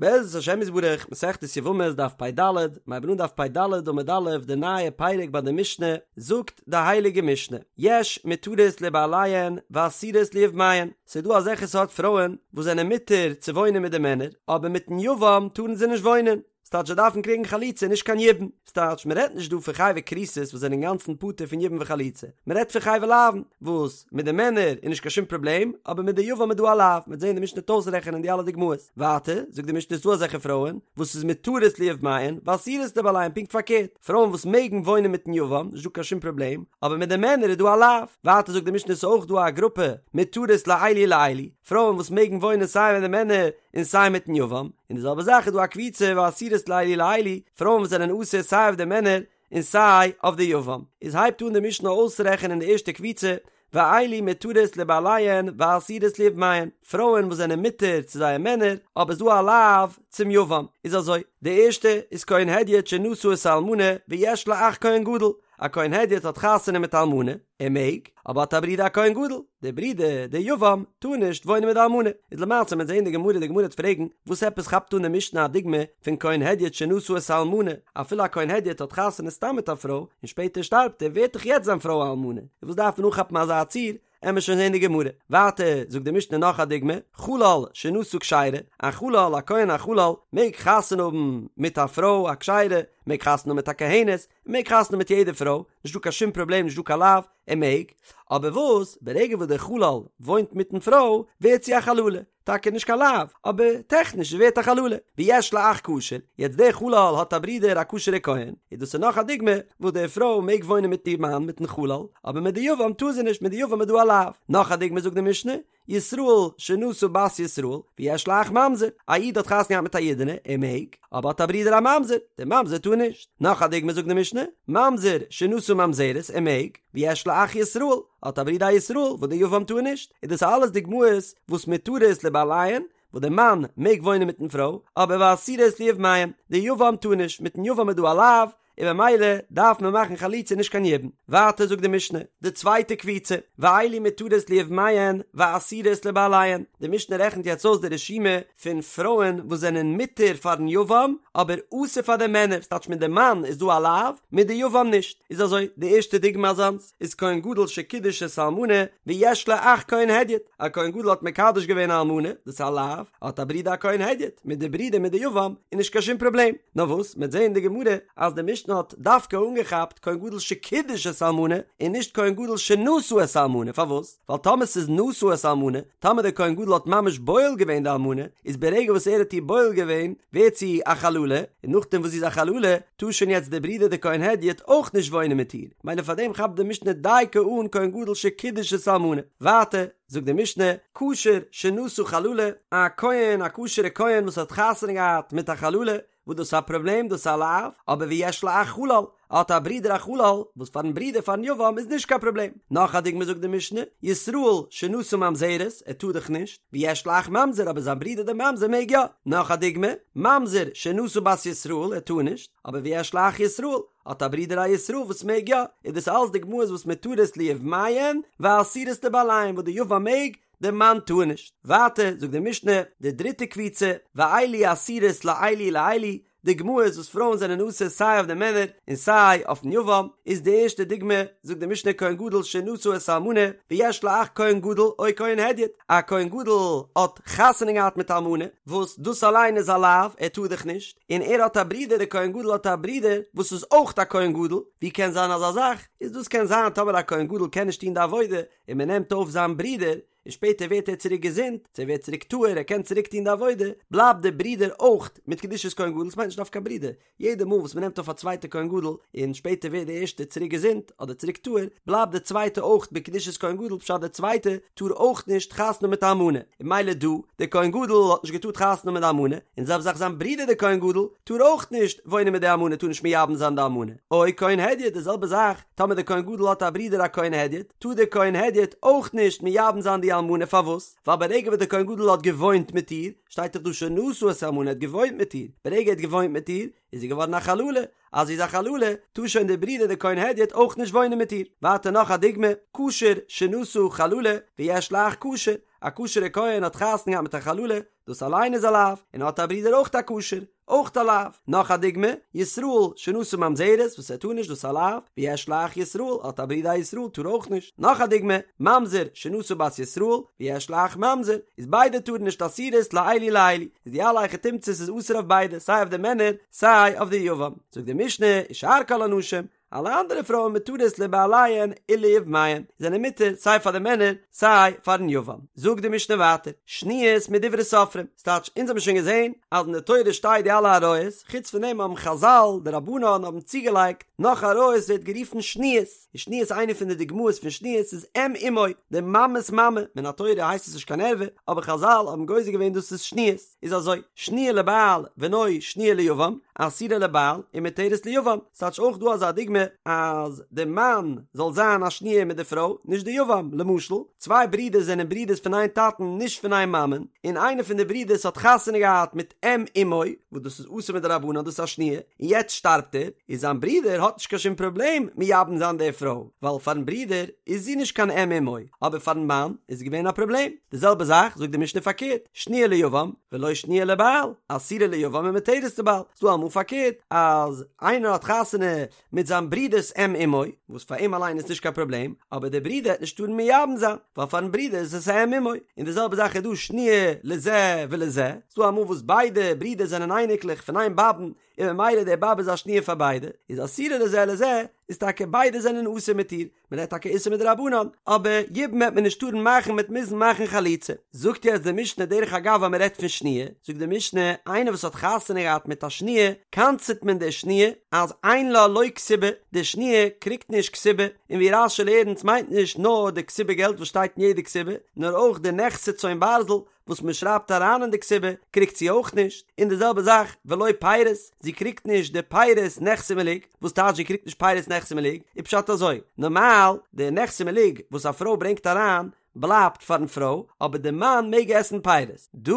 בעזרת השם יתברך, מסכת יבמות דף פ"ד, מ'הייבן אן דף פ"ד עמוד א', די נייע פרק ביי די משנה, זאגט די הייליגע משנה, יש מותרות לבעליהן ואסורות ליבמיהן, ס'איז דא אזעלכע סארט פרויען וואס זענען מותר צו וואוינען מיט די מענער, אבער מיטן יבם טארן זיי נישט וואוינען, ס'טייטש זיי דארפן קריגן חליצה נישט קיין יבום, ס'טייטש מ'רעדט נישט דא פון חייבי כריתות וואס זענען אינגאנצן פטור פון יבום וחליצה, מ'רעדט פון חייבי לאוין וואס מיט די מענער איז נישט קיין שום פראבלעם אבער מיט די יבם איז דא א לאו, מ'וועט זען די משנה וועט אויסרעכענען די אלע דוגמאות, ווייטער זאגט די משנה ס'איז דא אזעלכע פרויען וואס איז מותרות ליבמיהן ואסורות לבעליהן פונקט פארקערט, פרויען וואס מעגן וואוינען מיטן יבם נישט דא קיין שום פראבלעם אבער מיט די מענער איז דא א לאו, ווייטער זאגט די משנה ס'איז אויך דא א גרופע מותרות לאלו ולאלו, פרויען וואס מעגן וואוינען סיי מיט די מענער און סיי מיטן יבם, און די זעלבע זאך איז דא א קבוצה ואסורות לאלו ולאלו, פרויען וואס זענען אסור סיי אויף די מענער און סיי אויף די יבם. איז הייבט אן די משנה אויסרעכענען די ערשטע קבוצה, ואלו מותרות לבעליהן ואסורות ליבמיהן, פרויען וואס זענען מותר צו זייער מענער, אבער ס'דא א לאו צום יבם. איז אזוי, די ערשטע איז כהן הדיוט שנשא את האלמנה ויש לו אח כהן גדול, א כהן הדיוט האט חתונה מיט א אלמנה, ער מעג, אבער האט א ברודער א כהן גדול, דער ברודער, דער יבם, טאר נישט וואוינען מיט די אלמנה. איז למעשה מ'וועט זעהן אין די גמרא, די גמרא וועט פרעגן, וואס עפעס כאפט אן די משנה א דוגמא פון כהן הדיוט שנשא את האלמנה, אפילו א כהן הדיוט האט חתונה סתם מיט א פרוי, און שפעטער שטארבט ער, ווערט דאך יעצט זיין פרוי א אלמנה, איז וואס דארף מען אנכאפן אזא ציור, עמער שוין זעהן די גמרא. ווייטער זאגט די משנה נאך א דוגמא, חלל שנשא כשרה, א חלל, א כהן א חלל, מעג חתונה האבן מיט א פרוי א כשרה, מעג חתונה האבן מיט א כהנת, מעג חתונה האבן מיט יעדע פרוי, נישט דא קיין שום פראבלעם נישט דא קיין לאו, ער מעג, אבער וואס, ברגע וואס דער חלל וואוינט מיטן פרוי, ווערט זי א חללה, טאקע נישט קיין לאו, אבער טעכניש זי ווערט א חללה, ויש לו אח כשר, יעצט דער חלל האט א ברודער א כשר'ע כהן, איז דאס איז נאך א דוגמא וואס די פרוי מעג וואוינען מיט איר מאן מיטן חלל, אבער מיט די יבם טאר זי נישט, מיט די יבם איז דא א לאו. נאך א דוגמא זאגט די משנה, ישראל שנשא בת ישראל ויש לו אח ממזר, א איד האט חתונה געהאט מיט א אידענע, ער מעג, אבער האט א ברודער א ממזר, דער ממזר טאר נישט. נאך א דוגמא זאגט די משנה, ממזר שנשא ממזרת, ער מעג, ויש לו אח ישראל, האט א ברודער א ישראל, וואס דער יבם טאר נישט, איז דאס אלעס דוגמאות וואס מותרות לבעליהן, וואס דער מאן מעג וואוינען מיטן פרוי, אבער ואסורות ליבמיהן, דער יבם טאר נישט, מיטן יבם איז דא א לאו, און במילא דארף מען מאכן חליצה נישט קיין יבום. ווייטער זאגט די משנה, די צווייטע קבוצה, ואלו מותרות ליבמיהן ואסורות לבעליהן, די משנה רעכנט יעצט אויס די רשימה פון פרויען וואס זענען מותר פארן יבם אבער אסור פאר די מענער, ס'טייטש מיט די מאן איז דא א לאו, מיט די יבם נישט, איז אזוי, די ערשטע דוגמא אזאנס, איז כהן גדול שקידש את האלמנה ויש לו אח כהן הדיוט, א כהן גדול האט מקדש געווען א אלמנה, דאס איז א לאו, האט א ברודער א כהן הדיוט, מיט די ברודער מיט די יבם איז נישט קיין שום פראבלעם, נאר וואס, מ'עט זעהן אין די גמרא אז די משנה האט דווקא אנגעכאפט כהן גדול שקידש את האלמנה און נישט כהן גדול שנשא את האלמנה, פארוואס? ווייל טאמער ס'איז נשא את האלמנה, טאמער דער כהן גדול האט ממש בועל געווען די אלמנה, איז ברגע וואס ער האט איר בועל געווען, ווערט זי א חללה, און נאכדעם וואס זי איז א חללה, טאר שוין יעצט דער ברודער דער כהן הדיוט אויך נישט וואוינען מיט איר, מילא פארדעם כאפט די משנה דייקא אן כהן גדול שקידש את האלמנה. ווייטער, זאגט די משנה, כשר שנשא חללה, א כהן, א כשר'ע כהן וואס האט חתונה געהאט מיט א חללה, וואס דאס איז א פראבלעם, דאס איז א לאו, אבער ויש לו אח חלל, ער האט א ברודער א חלל, וואס פארן ברודער פארן יבם איז נישט קיין פראבלעם. נאך א דוגמא זאגט די משנה, ישראל שנשא ממזרת, ער טאר דאך נישט, ויש לו אח ממזר אבער זיין ברודער דער ממזר מעג יא. נאך א דוגמא, ממזר שנשא בת ישראל, ער טאר נישט, אבער ויש לו אח ישראל, האט א ברודער א ישראל וואס מעג יא, איז דאס אלס דוגמאות וואס מותרות ליבמיהן ואסורות לבעליהן וואס די יבם מעג, די מאן טאר נישט. ווייטער זאגט די משנה, די דריטע קבוצה, ואלו אסורות לאלו ולאלו, דוגמאות וואס פרויען זענען אסור סיי אויף די מענער און סיי אויפן יבם, איז די ערשטע דוגמא, זאגט די משנה כהן גדול שנשא את האלמנה ויש לו אח כהן גדול או כהן הדיוט, א כהן גדול האט חתונה געהאט מיט א אלמנה, וואס דאס אליין איז א לאו, ער טאר דאך נישט, און ער האט א ברודער, דער כהן גדול האט א ברודער וואס איז אויך א כהן גדול, ווי קען זיין אזא זאך? איז דאס קען זיין טאמער א כהן גדול קען נישט טון די עבודה, און מען נעמט אויף זיין ברודער, און שפעטער ווערט ער צוריק געזונט, צו ער ווערט צוריק טהור, ער קען צוריק טון די עבודה, בלייבט דער ברודער אויך מיט קדושת כהן גדול, עס מיינט נישט דווקא א ברודער, יעדע מאל וואס מען נעמט אויף א צווייטע כהן גדול, און שפעטער ווערט דער ערשטער צוריק געזונט, אדער צוריק טהור, בלייבט דער צווייטע אויך בקדושת כהן גדול, פשט דער צווייטע טאר אויך נישט חתונה האבן מיט א אלמנה, און ממילא דא, דער כהן גדול האט נישט געטארט חתונה האבן מיט די אלמנה, און זעלבע זאך זיין ברודער דער כהן גדול, טאר אויך נישט וואוינען מיט די אלמנה, טאר נישט מייבם זיין די אלמנה, או כהן הדיוט, די זעלבע זאך, טאמער דער כהן גדול האט א ברודער א כהן הדיוט, טאר דער כהן הדיוט אויך נישט מייבם זיין די אלמנה. די אלמנה פארוואס? ווייל ברגע וואס דער כהן גדול האט געוואוינט מיט איר, שטייט דאך דא שנשא את האלמנה ער האט געוואוינט מיט איר, ברגע ער האט געוואוינט מיט איר איז זי געווארן א חללה, אז זי איז א חללה טאר שוין דער ברודער דער כהן הדיוט אויך נישט וואוינען מיט איר. ווייטער נאך א דוגמא, כשר שנשא חללה ויש לו אח כשר, א כשר'ע כהן האט חתונה געהאט מיט א חללה, דאס אליין איז א לאו, און האט א ברודער אויך א כשר, אויך א לאו. נאך א דוגמא, ישראל שנשא ממזרת, וואס ער טאר נישט, דאס איז א לאו, ויש לו אח ישראל, האט א ברודער א ישראל, טאר אויך נישט. נאך א דוגמא, ממזר שנשא בת ישראל, ויש לו אח ממזר, איז ביידע טארן נישט אסורות לאלו ולאלו, איז די אלע היכי תמצא'ס איז אסור אויף ביידע, סיי אויף די מענער, סיי אויף די יבם. זאגט די משנה, ושאר כל הנשים, אלע אנדערע פרויען מותרות לבעליהן וליבמיהן, זענען מותר סיי פאר די מענער סיי פארן יבם. זאגט די משנה ווייטער, שניות מדברי סופרים, ס'טייטש אונז האבן שוין געזען אז אין די תורה שטייט די אלע עריות, חוץ פון דעם האבן חזל, די רבנן האבן צוגעלייגט נאך עריות ווערט גערופן שניות, און שניות איינע פון די דוגמאות פון שניות איז אם אמו, די מאמע'ס מאמע, מן התורה הייסט עס נישט קיין ערווה, אבער חזל האבן גוזר געווען דאס איז שניות. איז אזוי, שניה לבעל ולא שניה ליבם, אסורה לבעל ומותרת ליבם, ס'טייטש אויך דא אזא דוגמא אז די מאן זאל זיין א שניה מיט די פרוי, נישט די יבם, למשל, צוויי ברידערס זענען ברידערס פון איין טאטן נישט פון איין מאמען, און איינער פון די ברידערס האט חתונה געהאט מיט אם אמו, וואס דאס איז אסור מדרבנן דאס איז א שניה, און יעצט שטארבט ער, איז זיין ברודער האט נישט קיין שום פראבלעם מייבם זיין די פרוי, ווייל פארן ברודער איז זי נישט קיין אם אמו, אבער פארן מאן איז געווען א פראבלעם. די זעלבע זאך זאגט די משנה פארקערט, שניה ליבם ולא שניה לבעל, אסורה ליבם ומותרת לבעל, ס'דא אמאל פארקערט אז איינער האט חתונה מיט זיין ברודער'ס אם אמו, וואס פאר אים אליין איז נישט קיין פראבלעם, אבער דער ברודער העט נישט טארן מייבם זיין, ווייל פארן ברודער איז עס א אם אמו, און די זעלבע זאך איז דא שניה לזה ולזה, ס'דא אמאל וואס ביידע ברידער זענען אייניקלעך פון איין באבען, און ממילא די באבע איז א שניה פאר ביידע, איז אסורה לזה ולזה, איז טאקע ביידע זענען אסור מיט איר, מען רעדט טאקע איסור מדרבנן, אבער יבום העט מען נישט טארן מאכן מ'עט מוזן מאכן חליצה. זאגט יעצט די משנה דרך אגב אז מען רעדט פון שניה, זאגט די משנה, איינער וואס האט חתונה געהאט מיט א שניה, קנס'עט מען די שניה אז אין לה לא כתובה, די שניה קריגט נישט כתובה, און ווי רש"י לערנט מיינט נישט נאר די כתובה געלט וואס שטייט אין יעדע כתובה, נאר אויך די נכסי צאן ברזל, וואס מען שרייבט אריין אין די כתובה קריגט זי אויך נישט, און די זעלבע זאך ולא פירות, זי קריגט נישט די פירות נכסי מלוג, וואס טייטש זי קריגט נישט פירות נכסי מלוג? איז פשט אזוי, נארמאל די נכסי מלוג וואס א פרוי ברענגט אריין בלייבט פארן פרוי, אבער די מאן מעג עסן פירות, דא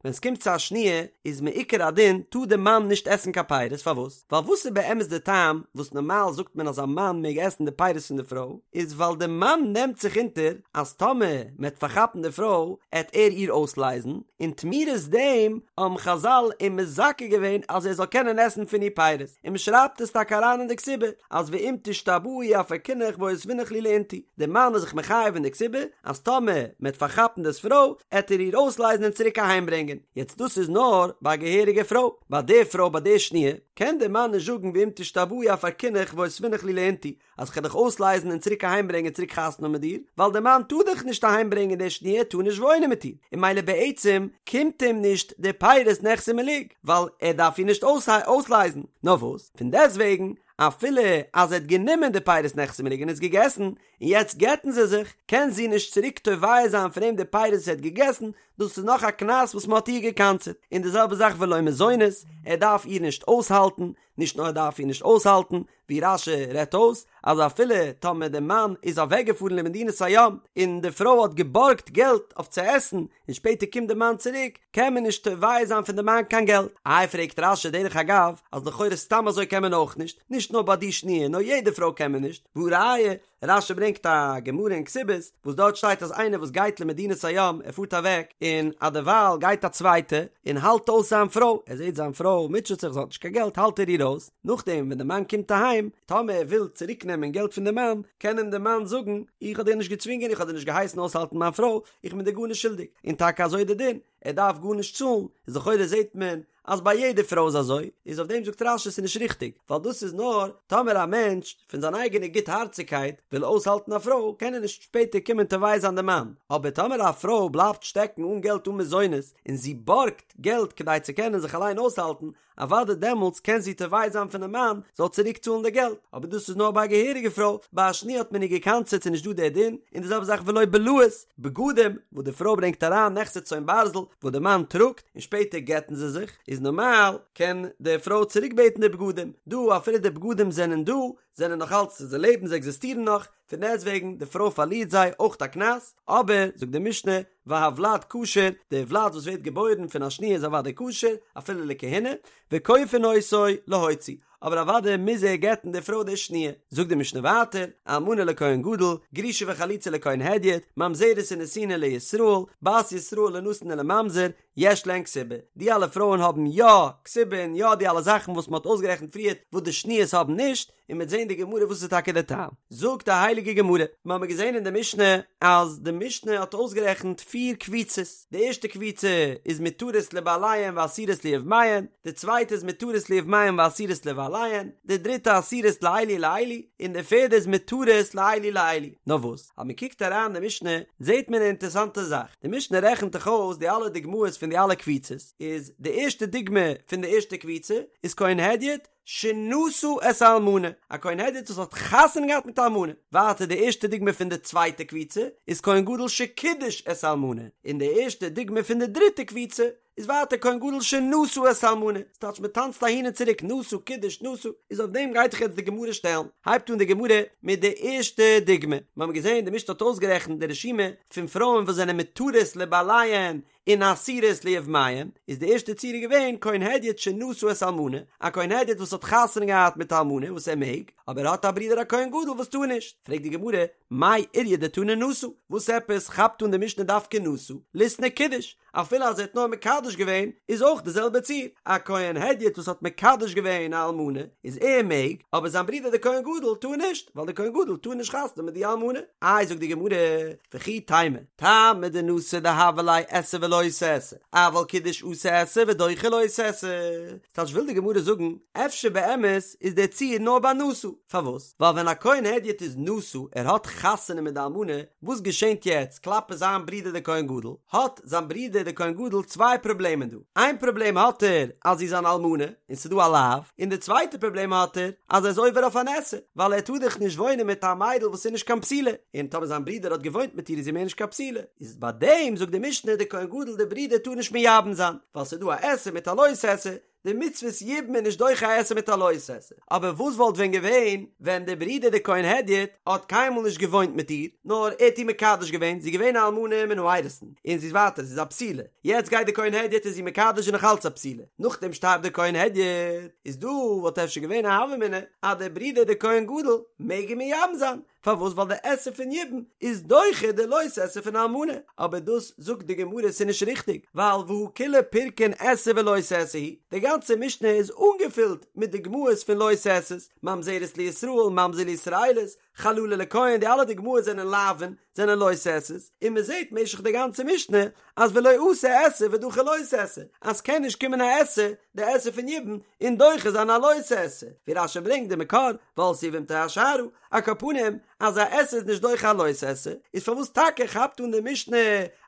ווען ס'קומט צו א שניה איז מעיקר הדין טאר די מאן נישט עסן קיין פירות, פארוואס? ווייל וואס איז באמת די טעם וואס נארמאל זאגט מען אז א מאן מעג עסן די פירות פון די פרוי, איז ווייל די מאן נעמט זיך אונטער אז טאמער מען העט פארכאפן די פרוי העט ער איר אויסלייזן, און תמורת דעם האבן חזל אים מזכה געווען אז ער זאל קענען עסן פון איר פירות, און מען שרייבט עס טאקע אריין אין די כתובה אז ואם תשתבאי אפרקינך ואותבינך לי לאינתו, די מאן איז זיך מחייב אין די כתובה אז טאמער מען העט פארכאפן דאס פרוי העט ער איר אויסלייזן און צוריק אהיים ברענגען, יעצט דאס איז נאר ביי א געהעריגע פרוי. ביי די פרוי ביי די שניה, קען דער מאן נישט זאגן ואם תשתבאי אפרקינך ואותבינך לי לאינתו, אז כ'על דיך אויסלייזן און צוריק אהיימברענגען צוריק חתונה האבן מיט דיר, ווייל דער מאן טאר דאך נישט אהיימברענגען די שניה טאר נישט וואוינען מיט איר, און ממילא בעצם קומט אים נישט די פירות נכסי מלוג, ווייל ער דארף איר נישט אויסלייזן, נאר וואס, פון דעסטוועגן, אפילו אז ער האט גענומען די פירות נכסי מלוג און עס געגעסן, און יעצט גט'ן זיי זיך, קען זי נישט צוריק תובע זיין פון אים די פירות וואס ער האט געגעסן, דאס איז נאך א קנס וואס מען האט איר געקנס'עט, און די זעלבע זאך ולא מזונות, ער דארף איר נישט אויסהאלטן, נישט נאר ער דארף איר נישט אויסהאלטן, ווי רש"י רעדט אויס, אז אפילו טאמער די מאן איז אוועקגעפארן למדינת הים, און די פרוי האט געבארגט געלט אויף צו עסן, און שפעטער קומט די מאן צוריק, קען מען נישט תובע זיין פון די מאן קיין געלט. איי פרעגט רש"י דרך אגב, אז לכאורה סתם אזוי קען מען אויך נישט, נישט נאר ביי די שניה, נאר יעדע פרוי קען מען נישט, והא ראיה, רש"י ברענגט א גמרא אין כתובות וואס דארט שטייט אז איינער וואס גייט למדינת הים ער פארט אוועק און אדערווייל גייט א צווייטע און האלט אויס זיין פרוי ער זעט זיין פרוי מוטשעט זיך זי האט נישט קיין געלט האלט ער איר אויס נאכדעם ווען די מאן קומט אהיים טאמער ער וויל צוריק נעמען געלט פון די מאן קען אים די מאן זאגן איך האב דיר נישט געצווינגען איך האב דיר נישט געהייסן אויסהאלטן מיין פרוי איך בין דיר גארנישט שולדיג און טאקע אזוי איז די דין ער דארף גארנישט צאלן איז לכאורה זעט מען אז ביי יעדע פרוי איז אזוי, איז אויף דעם זאגט רש"י ס'איז נישט ריכטיג, ווייל דאס איז נאר טאמער א מענטש פון זיין אייגענע גוטהארציגקייט וויל אויסהאלטן א פרוי קען ער נישט שפעטער קומען תובע זיין די מאן, אבער טאמער א פרוי בלייבט שטעקן אן געלט אן מזונות און זי בארגט געלט כדי צו קענען זיך אליין אויסהאלטן, אוודאי דעמאלטס קען זי תובע זיין פונעם מאן זאל צוריק צאלן די געלט, אבער דאס איז נאר ביי א געהעריגע פרוי, ביי א שניה האט מען איר געקנס'עט ס'איז נישט דא דער דין, און די זעלבע זאך ולא בלאות, בגדים וואס די פרוי ברענגט אריין נכסי צאן ברזל וואס די מאן טראגט, און שפעטער גט'ן זיי זיך, איז נארמאל קען די פרוי צוריק בעטן די בגדים, דא אפילו די בגדים זענען דא, זענען נאך אלץ, זיי לעבן, זיי עקזיסטירן נאך, פון דעסטוועגן די פרוי פארלירט זיי אויך א קנס, אבער, זאגט די משנה, והוולד כשר, די וולד וואס ווערט געבוירן פון א שניה איז אוודאי כשר, אפילו לכהונה, וכופין אותו להוציא, אבער אוודאי מוז ער גט'ן די פרוי די שניה. זאגט די משנה ווייטער, אלמנה לכהן גדול, גרושה וחלוצה לכהן הדיוט, ממזרת ונתינה לישראל, בת ישראל לנתין ולממזר, יש להן כתובה. די אלע פרויען האבן יא כתובה און יא די אלע זאכן וואס מען האט אויסגערעכנט פריערט וואס די שניות האבן נישט, און מ'וועט זען די גמרא וואס איז טאקע די טעם. זאגט די הייליגע גמרא, מיר האבן געזען אין די משנה אז די משנה האט אויסגערעכנט פיר קבוצות, די ערשטע קבוצה איז מותרות לבעליהן ואסורות ליבמיהן, די צווייטע איז מותרות ליבמיהן ואסורות לבעליהן, די דריטע אסורות לאלו ולאלו, און די פערדע איז מותרות לאלו ולאלו. נאר וואס, אז מען קוקט אריין די משנה זעט מען א אינטערעסאנטע זאך, די משנה רעכנט דאך אויס די אלע דוגמאות פון די אלע קבוצות, איז די ערשטע דוגמא פון די ערשטע קבוצה איז כהן הדיוט, שנשא את האלמנה, א כהן הדיוט וואס האט חתונה געהאט מיט א אלמנה. ווייטער די ערשטע דוגמא פון די צווייטע קבוצה איז כהן גדול שקידש את האלמנה, און די ערשטע דוגמא פון די דריטע קבוצה איז ווייטער כהן גדול שנשא את האלמנה, ס'טייטש מען טאנצט אהין און צוריק נשא קידש נשא, איז אויף דעם גייט זיך יעצט די גמרא שטעלן, הייבט אן די גמרא מיט די ערשטע דוגמא, מיר האבן געזען די משנה האט אויסגערעכנט די רשימה פון פרויען וואס זענען מותרות לבעליהן און אסורות ליבמיהן, איז די ערשטע ציור געווען כהן הדיוט שנשא את האלמנה, א כהן הדיוט וואס האט חתונה געהאט מיט א אלמנה וואס ער מעג, אבער ער האט א ברודער א כהן גדול וואס טאר נישט, פרעגט די גמרא, מאי איריא דתנא נשא, וואס עפעס כאפט אן די משנה דווקא נשא, ליתני קידש, אפילו אז ער האט נאר מקדש געווען איז אויך די זעלבע ציור, א כהן הדיוט וואס האט מקדש געווען א אלמנה איז ער מעג, אבער זיין ברודער דער כהן גדול טאר נישט, ווייל דער כהן גדול טאר נישט חתונה מיט די אלמנה. איי זאגט די גמרא, וכי תימא, טעמא דנשא דהוה ליה עשה ולא תעשה, אבל קידש אתי עשה ודוחה לא תעשה. ס'טייטש וויל די גמרא זאגן, אפשר באמת איז דער ציור נאר ביי נשא, פארוואס? ווייל ווען א כהן הדיוט איז נשא, ער האט חתונה מיט די אלמנה, וואס געשענט יעצט כלפי זיין ברודער דער כהן גדול? האט זיין ברודער דער כהן גדול צוויי פראבלעמען דא, איין פראבלעם האט ער אז זי איז אן אלמנה און ס'איז דא א לאו, און די צווייטע פראבלעם האט ער אז ער איז עובר אויף אן עשה, ווייל ער טאר דאך נישט וואוינען מיט א מיידל וואס איז נישט קיין בתולה, און טאמער זיין ברודער האט געוואוינט מיט איר איז זי מער נישט קיין בתולה, איז ביי דעם זאגט די משנה דער כהן גדול דער ברודער טאר נישט מייבם זיין, ווייל ס'איז דא א עשה מיט א לא תעשה, די מצוות יבום איז נישט דוחה א עשה מיט א לא תעשה, אבער וואס וואלט ווען געווען ווען דער ברודער דער כהן הדיוט האט קיינמאל נישט געוואוינט מיט איר, נאר ער האט איר מקדש געווען, זי איז געווען א אלמנה מן האירוסין, און זי איז ווייטער, זי איז א בתולה, יעצט גייט דער כהן הדיוט איז זי מקדש און נאך אלץ א בתולה, נאכדעם שטארבט דער כהן הדיוט, איז דא וואלט אפשר געווען א הוה אמינא אז דער ברודער דער כהן גדול מעג איר מייבם זיין, פארוואס ווייל די עשה פון יבום איז דוחה די לא תעשה פון אלמנה, אבער דאס זאגט די גמרא ס'איז נישט ריכטיג, ווייל והא כולה פירקין עשה ולא תעשה הוא, די גאנצע משנה איז אנגעפילט מיט דוגמאות פון לא תעשה'ס, ממזרת לישראל, ממזר לישראלית, חללה לכהן, די אלע דוגמאות זענען לאווין, זענען לא תעשה'ס, און מען זעט משך די גאנצע משנה אז ולא אתי עשה ודחי לא תעשה, אז ס'קען נישט קומען א עשה, די עשה פון יבום, און דוחה זיין א לא תעשה, ווי רש"י ברענגט די מקור, ועלתה יבמתו השערה, על כל פנים, אז א עשה איז נישט דוחה א לא תעשה, איז פארוואס טאקע כאפט אן די משנה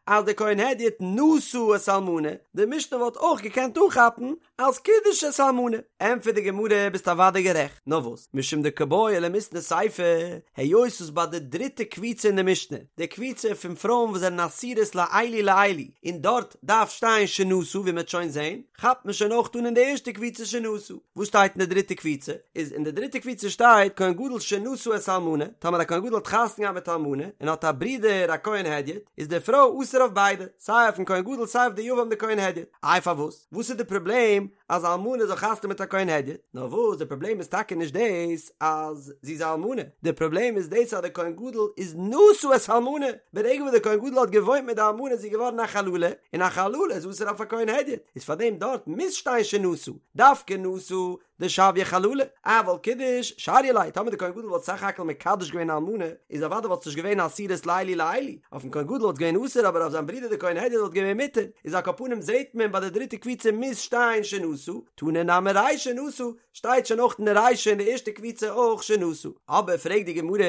אז די כהן הדיוט נשא את האלמנה, די משנה וואלט אויך געקענט אנכאפן אז קידש את האלמנה. ענטפערט די גמרא, ביסט אוודאי גערעכט, נאר וואס, משום דקא בעי למיתני סיפא, היות וואס ביי די דריטע קבוצה אין די משנה, די קבוצה פון פרויען וואס זענען אסורות לאלו ולאלו, און דארט דארף שטיין שנשא ווי מ'וועט שוין זען, כאפט מען שוין אויך אן אין די ערשטע קבוצה שנשא. וואס שטייט אין די דריטע קבוצה? איז אין די דריטע קבוצה שטייט כהן גדול שנשא את האלמנה, טאמער א כהן גדול האט חתונה געהאט מיט א אלמנה און האט א ברודער א כהן הדיוט, איז די פרוי אסור אויף ביידע, סיי אויפן כהן גדול סיי אויף די יבם די כהן הדיוט. איי פארוואס? וואס איז די פראבלעם אז א אלמנה זאל חתונה מיט א כהן הדיוט? נאר וואס די פראבלעם איז טאקע נישט דאס אז זי איז א אלמנה, די פראבלעם איז דאס אז די כהן גדול איז נשא את האלמנה, ברגע וואס די כהן גדול האט געוואוינט מיט די אלמנה איז זי געווארן א חללה, און א חללה איז אסור אויף א כהן הדיוט, איז פארדעם דארט מוז שטיין שנשא, דווקא נשא דשויה חללה, אבל קידש שריא ליה, טאמער די כהן גדול וואלט סך הכל מקדש געווען א אלמנה, איז אוודאי וואלט עס נישט געווען אסורות לאלו ולאלו, אויפן כהן גדול וואלט געווען אסור אבער אויף זיין ברודער די כהן הדיוט וואלט געווען מותר, איז על כל פנים זעהט מען ביי די דריטע קבוצה מוז שטיין שנשא, תנא נמי רישא נשא, שטייט שוין אויך אין די רישא אין די ערשטע קבוצה אויך שנשא. אבער פרעגט די גמרא,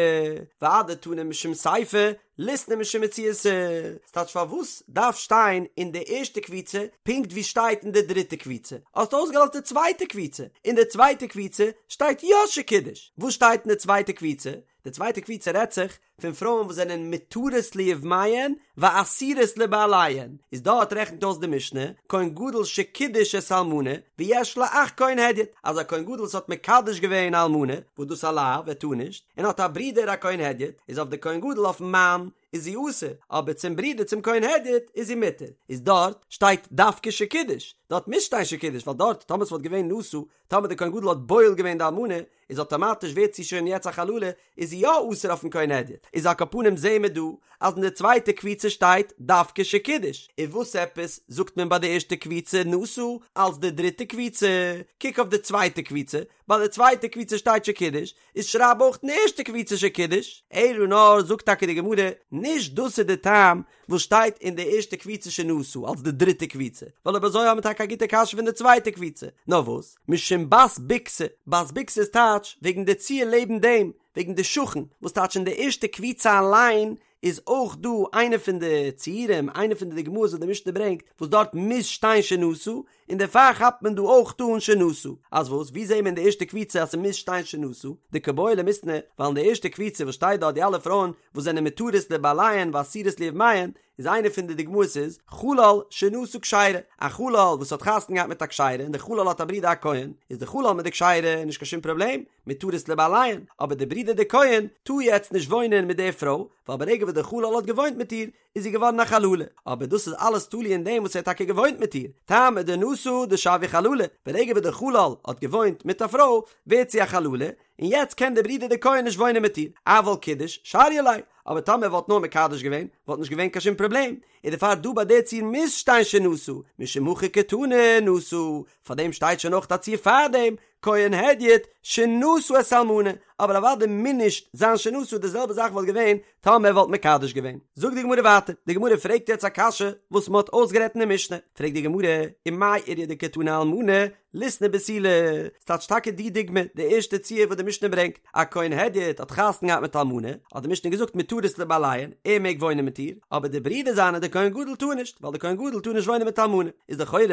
ואדתנא משום סיפא, ליתני משום מציעתא, ס'טייטש פארוואס דארף שטיין אין די ערשטע קבוצה פונקט ווי שטייט אין די דריטע קבוצה? האסט אויסגעלאזט די צווייטע קבוצה, אין די צווייטע קבוצה שטייט יא שקידש, וואס שטייט אין די צווייטע קבוצה? די צווייטע קבוצה רעדט זיך. פון פרויען וואס זענען מותרות ליבמיהן ואסורות לבעליהן, איז דארט רעכנט אויס די משנה, כהן גדול שקידש את האלמנה ויש לו אח כהן הדיוט, אז א כהן גדול וואס האט מקדש געווען א אלמנה, וואס דאס א לאו, ער טאר נישט, און האט א ברודער א כהן הדיוט, איז אויף די כהן גדול אויפן מאן איז זי אסור, אבער צום ברודער צום כהן הדיוט איז זי מותר, איז דארט שטייט דווקא שקידש, דארט מוז שטיין שקידש, ווייל דארט טאמער ס'וואלט געווען נשא, טאמער די כהן גדול האט בועל געווען די אלמנה, איז אטאמאטיש ווערט זי שוין יעצט א חללה, איז זי יא אסור אויפן כהן הדיוט, איז על כל פנים זעהן מיר דא אז אין די צווייטע קבוצה שטייט דווקא שקידש, און וואס עפעס זאגט מען ביי די ערשטע קבוצה נשא אלס די דריטע קבוצה, קוק אויף די צווייטע קבוצה, ביי די צווייטע קבוצה שטייט שקידש, איז שרייב אויך אין די ערשטע קבוצה שקידש, אלא נאר זאגט טאקע די גמרא, נישט דאס איז די טעם וואס שטייט אין די ערשטע קבוצה שנשא אלס די דריטע קבוצה, ווייל אויב אזוי האבן מיר טאקע א גוטע קשיא פון די צווייטע קבוצה, נאר וואס, משום בת בוכתא, בת בוכתא איז טייטש וועגן די ציור לעבן דעם, וועגן די שכן, וואס טייטש אין די ערשטע קבוצה אליין איז אויך דא איינע פון די ציורים, איינע פון די דוגמאות וואס די משנה ברענגט, וואס דארט מוז שטיין שנשא, און דערפאר כאפט מען דא אויך אן שנשא. אז וואס? ווי זעהן מיר אין די ערשטע קבוצה אז ס'מוז שטיין שנשא? דקא בעי למיתנא, ווייל אין די ערשטע קבוצה וואס שטייט דארט די אלע פרויען וואס זענען מותרות לבעליהן ואסורות ליבמיהן, איז איינע פון די דוגמאות איז, חלל שנשא כשרה, א חלל וואס האט חתונה געהאט מיט א כשרה און די חלל האט א ברודער א כהן, איז די חלל מיט די כשרה נישט קיין שום פראבלעם, מותרות לבעליהן, אבער די ברודער די כהן טאר יעצט נישט וואוינען מיט די פרוי, ווייל ברגע וואס די חלל האט געוואוינט מיט איר, איז זי געווארן א חללה, אבער דאס איז אלעס תלוי אין דעם וואס ער האט טאקע געוואוינט מיט איר, טעמא דנשא דשויא חללה, ברגע וואס דער חלל האט געוואוינט מיט א פרוי ווערט זי א חללה, און יעצט קען דער ברודער דער כהן נישט וואוינען מיט איר, אבל קידש שריא ליה, אבער טאמער ער וואלט נאר מקדש געווען וואלט נישט געווען קיין שום פראבלעם, און דערפאר דא ביי די ציור מוז שטיין שנשא, משום הכי קתני נשא, פארדעם שטייט שוין אויך א ציור פארדעם, כהן הדיוט שנשא את האלמנה, אבער אוודאי מוז נישט זיין שנשא, די זעלבע זאך וואלט געווען טאמער ער וואלט מקדש געווען. זאגט די גמרא ווייטער, די גמרא פרעגט יעצט א קשיא וואס מען האט אויסגערעדט אין די משנה, פרעגט די גמרא, ומאי איריא דקתני אלמנה ליתני בתולה, ס'טייטש טאקע די דוגמא, די ערשטע ציור וואס די משנה ברענגט, א כהן הדיוט האט חתונה געהאט מיט אלמנה, האט די משנה געזאגט מותרות לבעליהן, ער מעג וואוינען מיט איר, אבער די ברודער זיינער דער כהן גדול טאר נישט, ווייל דער כהן גדול טאר נישט וואוינען מיט אלמנה, איז לכאורה